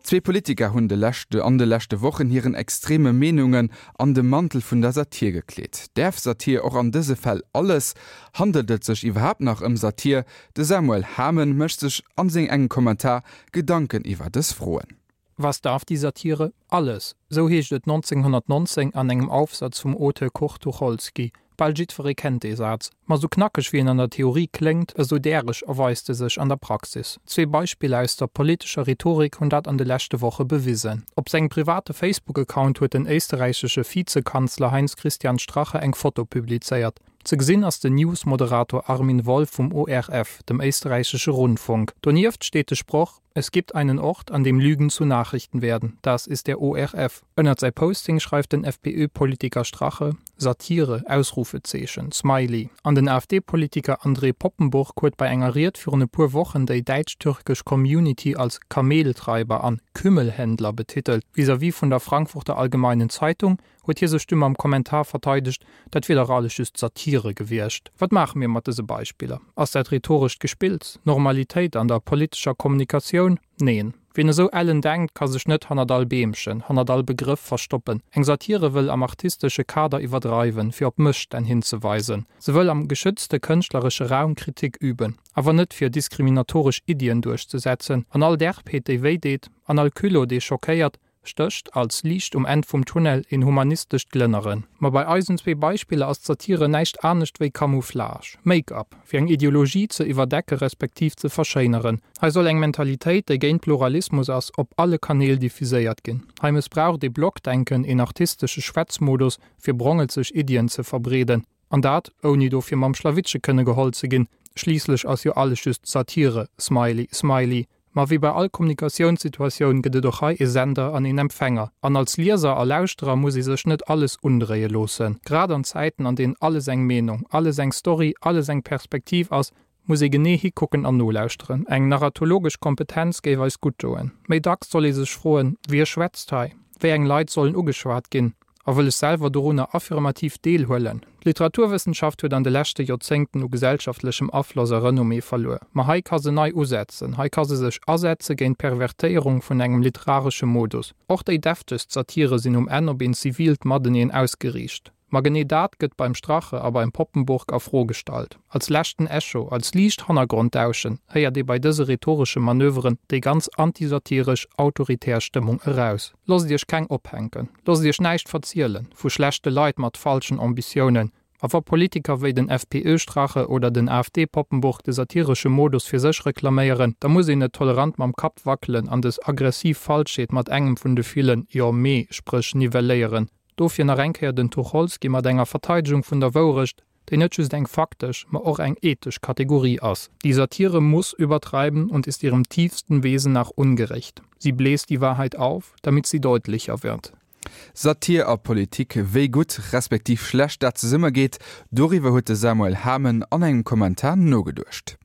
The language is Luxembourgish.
Zwee Politiker hunn de leschte an de leschte Wochen hiren extreme Meenungen an de Mantel vun der Satir gekleet. Däerf Satir och an dëse Fäll alles? Handelt et sech iwwerhaapt nach ëm Satir? De Samuel Hamen mécht sech an seng engem Kommentar Gedanken iwwer dës Froen. Was darf die Satire? Alles! Sou heescht et 1919 an engem Aufsatz vum Auteur Kurt Tucholsky. Bal jiddweree kennt dee Saz. Ma sou knackeg wéi en an der Theorie kléngt, esou däreg erweist e sech an der Praxis. Zwee Beispiller aus der politescher Rhetorik hunn dat an de leschte Woche bewisen. Op sengem private Facebook-Account huet den éisterräichesche Vizekanzler Heinz-Christian Strache eng Foto publizéiert. Ze gesinn ass den News-Moderator Armin Wolf vum ORF, dem éisterräichesche Rundfunk. Donieft steet de Sproch, Es gibt einen Ort, an dem Lügen zu Nachrichten werden. Das ist der ORF. Ënnert säi Posting schreift den FPÖ-Politiker Strache, Satire! Ausrufezeechen, Smiley. An den AfD-Politiker André Poppenburg huet bei enger Ried virun e puer Wochen déi däitsch-türkesch Community als Kameltreiber an Kümmelhändler betitelt. Vis-à-vis vun der Frankfurter Allgemeinen Zeitung huet hie sech du mam Kommentar verteidegt, dat wier dach alles just Satire gewiescht. Wat maache mir mat dëse Beispiller? Ass dat rhetorescht Gespills? Normalitéit an der politescher Kommunikatioun? Neen. Wien esou ellen denkt, ka sech net hannert all Beemchen, hannert all Begrëff verstoppen. Eng Satire wëll am artistesche Kader iwwerdreiwen, fir op Mësstänn hinzeweisen. Se wëll am geschützte kënschtleresche Raum Kritik üben, awer net fir diskriminatoresch Iddien duerchzesetzen. An all Derbheet, déi wéi deet, an all Culot, dee schockéiert, stécht als Liicht um Enn vum Tunnel een humanistescht Glënneren. Ma bei eisen zwee Beispiller ass d'Satire näischt anescht wéi Camouflage, Make-up, fir eng Ideologie ze iwwerdecke respektiv ze verschéineren. Hei soll eng Mentalitéit, déi géint Pluralismus ass, op alle Kanäl diffuséiert ginn. Hei mëssbraucht ee Blockdenken, een artistesche Schwätzmodus, fir brongelzeg Iddien ze verbreeden. An dat, ouni dofir mam Schlawittche kënne geholl ze ginn. Schliisslech ass jo alles just Satire smiley smiley. Ma wéi bei all Kommunikatiounssituatioun gëtt et och hei e Sender an een Empfänger. An als Lieser a Lauschterer muss ee sech net alles undréie loossen. Grad an Zäiten, an deenen alles eng Meenung, alles eng Story, alles eng Perspektiv ass, muss ee genee hikucken an nolauschteren. Eng narratologesch Kompetenz géif eis gutt doen. Méi dacks soll ee sech froen, Wie schwätzt hei? Wéi eng Leit sollen ugeschwat ginn? A wëll ech selwer dorunner affirmativ deelhuelen? D'Literaturwëssenschaft huet an de leschte Joerzéngten u gesellschaftlechem Afloss a Renommée verluer. Ma hei ka se nei usetzen, hei ka se sech asetze géint d'Pervertéierung vun engem literaresche Modus. Och déi deftegst Satire sinn um Enn op een zivilt Mateneen ausgeriicht. Ma genee dat gëtt beim Strache a beim Poppenburg a Fro gestallt. Als leschten Echo, als liicht Hannergronddauschen héiert ee bei dëse rhetoresche Manöveren déi ganz antisatiresch, autoritär Stëmmung eraus. Loosst iech keng ophänken, loosst iech näischt verzielen vu schlechte Leit mat falschen Ambitiounen. A wa Politiker wéi den FPÖ-Strache oder den AfD-Poppenburg de satiresche Modus fir sech reklaméieren, da muss een net tolerant mam Kapp wackelen an des aggressiv Falschheet mat engem vun de villen Jo, mee Spréch nivelléieren. Dofir nach eng Kéier den Tucholsky mat enger Verteidegung vun der Wourecht, déi net just eng faktesch, ma och eng ethesch Kategorie ass. Die Satire muss übertreiben und ist ihrem tiefsten Wesen nach ungerecht. Sie bläst die Wahrheit auf, damit sie deutlicher wird. Satir a Politik, wéi gutt respektiv schlecht dat zesummegeet, doriwwer huet de Samuel Hamen an engem Kommentar nogeduecht.